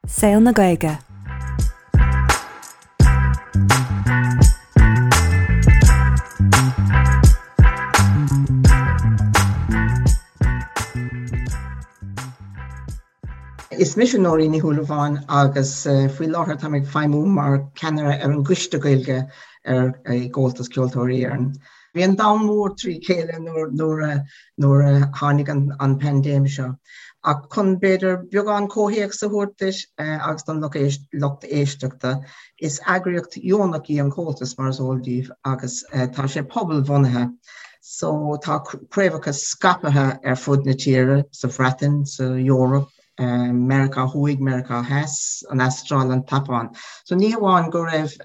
Saol na Gaeilge. Is mise Nóirín Ní Shúilleabháin agus faoi láthair táim ag feidhmiú mar ceannaire ar an gCoiste Gaeilge ar i gComhaltas Ceoltóirí Éireann. Bhí an domhan mór trí chéile nuair a nuair a tháinig an paindéim seo. Ach chun b'fhéidir beagán comhthéacs a thabhairt duit agus don lucht éisteachta, is eagraíocht dheonach í an Comhaltas mar is eol daoibh agus tá sé pobalbhunaithe. So tá craobhacha scaipthe ar fud na tíre, sa Bhreatain, sa Eoraip, Meiriceá Thuaidh, Meiriceá Theas, an Astráil, an tSeapáin. So ní hamháin go raibh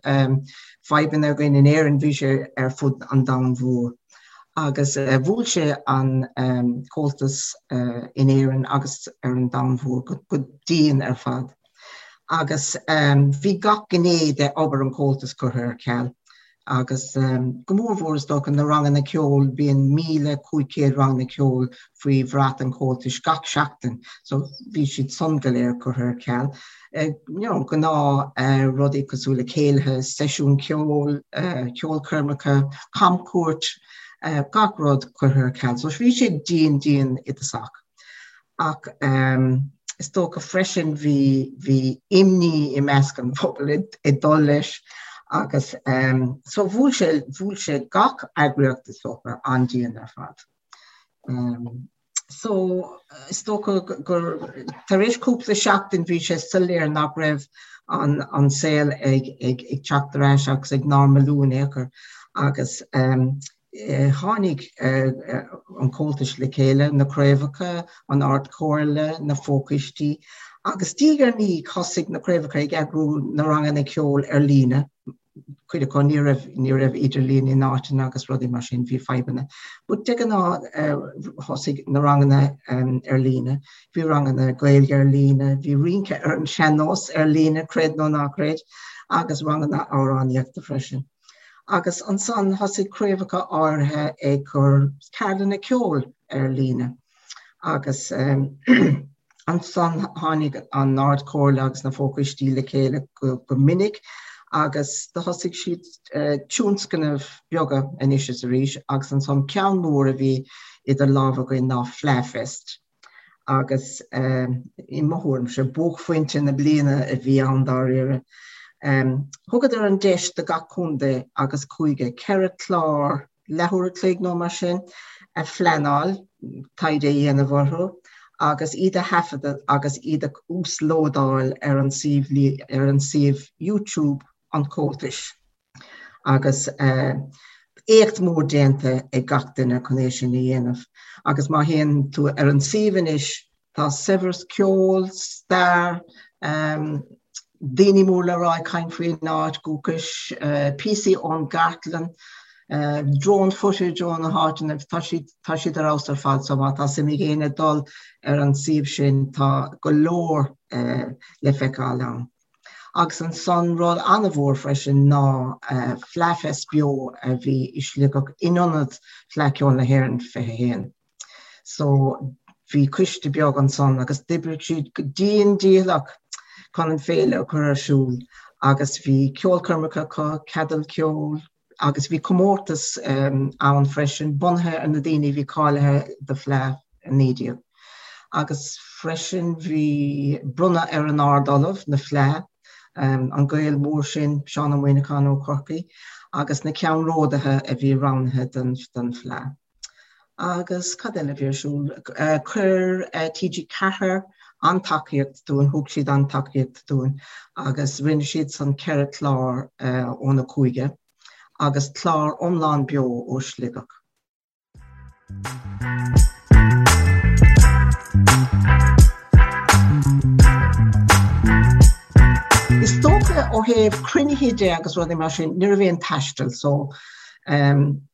fadhbanna againn in Éirinn, bhí sé ar fud an domhain mhór. Agus bhuail sé an Comhaltas in Éirinn agus ar an domhan mhór go dian ar fad. Agus bhí gach gné de obair an Chomhaltais curtha ar ceal. Agus go mór mhór is dócha na ranganna ceoil, bíonn 1,500 ranganna ceoil faoi bhrat an Chomhaltais gach seachtain, so bhí siad san go léir curtha ar ceal. You know, gnáth rudaí cosúil le céilithe, seisiún ceoil, ceolchoirmeacha, camchuairt, gach rud curtha ar ceal. So bhí sé dian dian i dtosach. Ach is dócha freisin bhí bhí imní i measc an phobail ag dul leis agus so bhuail sé bhuail sé gach eagraíocht is dócha an-dian ar fad. So is dócha gur tar éis cúpla seachtain bhí sé soiléir nach raibh an an saol ag ag ag teacht ar ais agus ag normalú in aon chor agus Tháinig an Comhaltas le chéile, na craobhacha, an Ard-Chomhairle, na fochoistí, agus diaidh ar ndiaidh thosaigh na craobhacha ag eagrú na ranganna ceoil ar líne, cuid acu ní raibh, ní raibh idirlíon in áiteanna agus rudaí mar sin, bhí fadhbanna. But de ghnáth thosaigh na ranganna ar líne, bhí ranganna Gaeilge ar líne, bhí rince ar an sean-nós ar líne, creid nó ná creid, agus ranganna amhránaíochta freisin. Agus ansan thosaigh craobhacha áirithe ag cur ceardlanna ceoil ar líne. Agus ansan tháinig an Ard-Chomhairle agus na fochoistí le chéile go minic agus do thosaigh siad tionscnaimh beaga anois is arís agus ansan ceann mór a bhí idir lámha againn ná Fleadh Fest. agus i mo thuairimse, buaicphointe na bliana a bhí ann dáiríre. Thugadar an deis do gach contae agus cúige 4 chlár leathuair a chloig nó mar sin a phleanáil, taighde a dhéanamh orthu agus iad a thaifeadadh agus iad a uaslódáil ar an suíomh ar an suíomh YouTube an Chomhaltais. Agus éacht mór déanta ag gach duine chun é sin a dhéanamh. Agus má théann tú ar an suíomh anois, tá saibhreas ceoil, stair, daoine mór le rá ag caint faoin áit dhúchais, píosaí ón gcartlann, drone footage ó na háiteanna, tá siad, tá siad ar fheabhas ar fad. So má tá suim ag éinne dul ar an suíomh sin, tá go leor le feiceáil ann. Agus ansan rud an-mhór freisin ná Fleadh Fest Beo a bhí i Sligeach in ionad Fleadh Cheoil na hÉireann 21. So bhí coiste beag ansan agus d'oibrigh siad go dian dícheallach chun an féile a chur ar siúl agus bhí ceolchoirmeacha acu, ceadail ceoil, agus bhí comórtas ann freisin bunaithe ar na daoine a bhí cáilithe do Fleadh 19. Agus freisin bhí bronnadh ar an Ard-Ollamh na Fleadh, an Gael mór sin, Seán Ó Muimhneacháin ó Chorcaigh, agus na ceannródaithe a bhí roghnaithe don Fleadh. Agus cad eile a bhí ar siúl? Chuir TG4 an-tacaíocht dúinn, thug siad an-tacaíocht dúinn agus rinne siad san 4 chlár ó na cúige agus clár iomlán beo ó Shligeach. Is dócha ó thaobh cruinnithe de agus rudaí mar sin, ní raibh aon taisteal so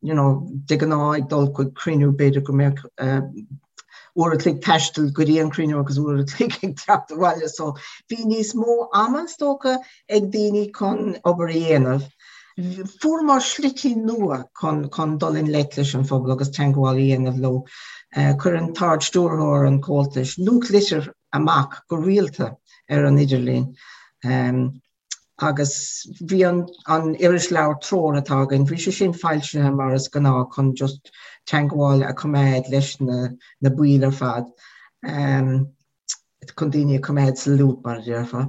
you know de ghnáth ag dul chuig cruinniú b'fhéidir go mbeadh uair a chloig taistil go dtí an cruinniú agus uair a chloig ag teacht abhaile so bhí níos mó ama is dócha ag daoine chun obair a dhéanamh. Fuaireamar slite nua chun chun dul i ngleic leis an phobal agus teagmháil a dhéanamh leo. Chuir an tArd-Stiúrthóir an Chomhaltais nuachtlitir. amach go rialta ar an idirlíon. Agus bhí an an irisleabhar Treoir atá againn, bhí sé sin foilsithe mar is gnáth chun just teangmháil a choimeád leis na na baill ar fad, chun daoine a choimeád sa loop mar a déarfá.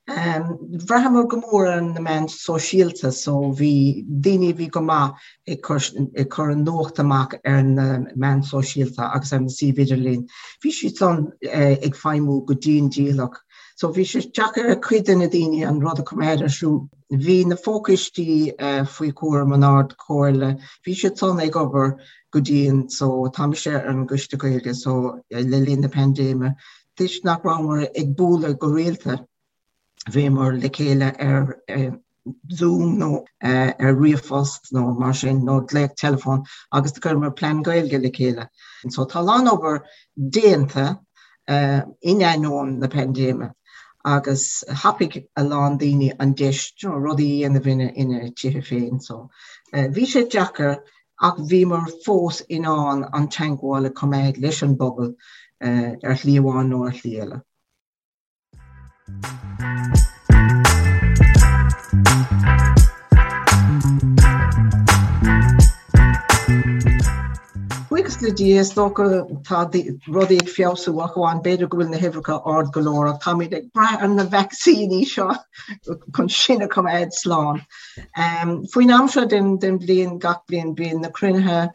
Bhraitheamar go mór ar na meáin sóisialta so bhí daoine a bhí go maith ag cur ag cur an nuacht amach ar na meáin sóisialta agus ar na suímh idirlín. Bhí siad san ag feidhmiú go dian dícheallach. So bhí sé deacair ar cuid de na daoine an rud a choimeád ar siúl. Bhí na fochoistí faoi chúram an Ard Chomhairle, bhí siad san ag obair go dian so tá mise ar an gCoiste Gaeilge so le linn na paindéime toisc nach rabhamar ag bualadh go rialta bhíomar le chéile ar Zoom nó ar ríomhphost nó mar sin nó glaoch teileafóin agus chuireamar plean Gaeilge le chéile. So tá a lán obair déanta in ainneoin na paindéime agus thapaigh a lán daoine an deis you know, rudaí a dhéanamh ina, ina tithe féin. So bhí sé deacair ach bhíomar fós in ann an teangmháil a choimeád leis an bpobal ar shlí amháin nó ar shlí eile. Buíochas le Dia, is dócha tá rudaí ag feabhsú ach amháin b'fhéidir go bhfuil na huimhreacha ard go leor ach táimid ag brath ar na vacsaíní seo chun sinn a choimeád slán. Faoin am seo den bhliain gach bliain bíonn na cruinnithe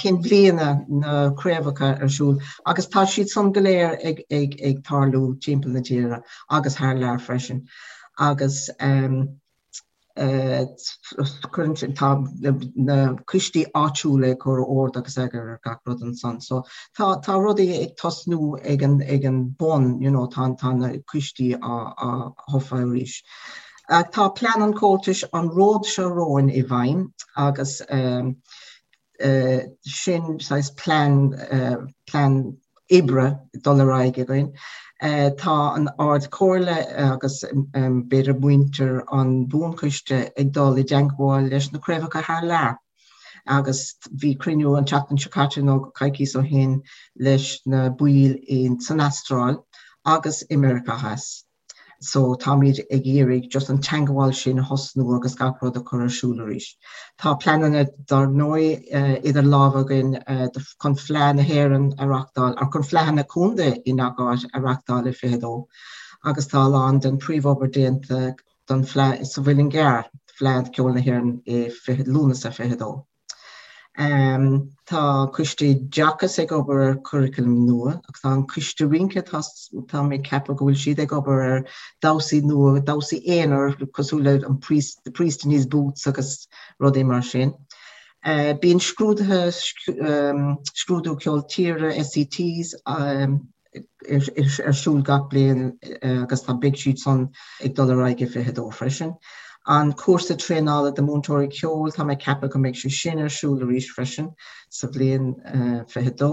cinn bhliana na craobhacha ar siúl agus tá siad san go léir ag, ag, ag tarlú timpeall na tíre agus thar lear freisin. Agus um, uh, tá na coistí áitiúla ag cur ord agus eagar ar gach rud ansan. So tá, tá rudaí ag tosnú ag an, ag an bun, you know, tá, tá na coistí á, á thofa arís. Tá plean an Chomhaltais an ród seo romhainn i bhfeidhm agus sin saghas plean, plean oibre dul ar aghaidh againn. Tá an Ard Chomhairle agus b'fhéidir muintir an Bhuanchoiste ag dul i dteangmháil leis na craobhacha thar lear agus bhí cruinniú an tseachtain seo caite nó coicíos ó shin leis na baill san Astráil agus i Meiriceá Theas. So táimid ag iarraidh just an teangmháil sin a thosnú agus gach rud a chur ar siúl arís. Tá pleananna dar ndóigh idir lámha againn chun Fleadh na hÉireann a reachtáil, or chun Fleadhanna Contae i ngach áit a reachtáil i 22 agus tá a lán den príomhobair déanta don Fleadh sa Mhuileann gCearr, Fleadh Ceoil na hÉireann i Lúnasa 22. Tá Coiste Oideachais ag obair ar churaclam nua agus tá an Coiste Rince, tá mé ag ceapadh go bhfuil siad ag obair ar damhsaí nua, damhsaí aonair cosúil le an priest, the priest in his boots agus rudaí mar sin. Bíonn scrúduithe, scrúdú ceol tíre, SCTs, ar siúl gach bliain agus tá beidh siad san ag dul ar aghaidh i 22 freisin. An cúrsa traenála do múinteoirí ceoil, tá mé ag ceapadh go mbeidh sé sin ar siúl arís freisin sa bhliain 22.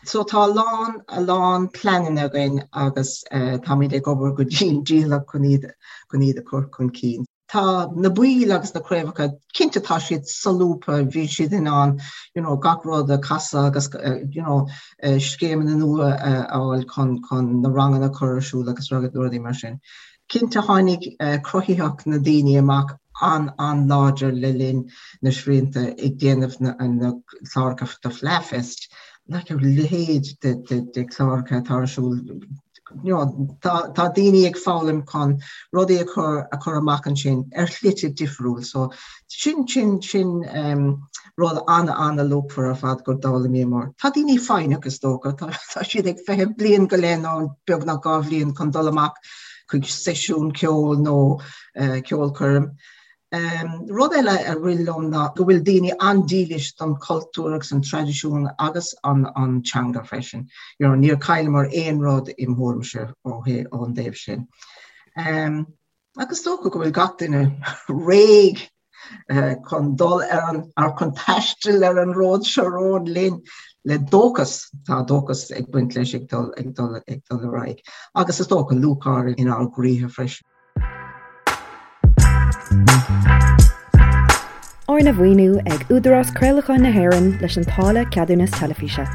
So tá a lán, a lán pleananna againn agus táimid ag obair go dian dícheallach chun iad, chun iad a chur chun cinn. Tá na baill agus na craobhacha, cinnte tá siad solúbtha, bhí siad in ann you know gach rud a chasadh agus you know scéimeanna nua a fháil chun chun na ranganna a chur ar siúl agus rudaí mar sin. Cinnte tháinig cruthaitheacht na daoine amach an-an-láidir le linn na srianta ag déanamh na na cláracha do Fleadhfest, like a leithéid de de de chláracha atá ar siúl you know, tá, tá daoine ag foghlaim chun rudaí a chur, a chur amach ansin ar shlite difriúil. So sin, sin, sin um, rud an-an-luachmhar ar fad gur d'fhoghlaimíomar. Tá daoine foighneach is dócha, tá, tá siad ag feitheamh bliain go leith nó beagnach 2 bhliain chun dul amach chuig seisiún ceoil nó uh, ceolchoirm. Rud eile a rith liom ná go bhfuil daoine an-dílis don chultúr agus an traidisiún agus an teanga freisin. You know, níor chailleamar aon rud im thuairimse ó ón dtaobh sin. Agus is dócha go bhfuil gach duine réidh chun dul ar an, ar chun taisteal ar an ród seo romhainn linn le dóchas, tá dóchas ag baint leis ag dul ag dul ag dul ar aghaidh. Agus is dócha lúcháir inár gcroíthe freisin. Arna mhaoiniú ag Údarás Craolacháin na hÉireann leis an táille Ceadúnas Teilifíse.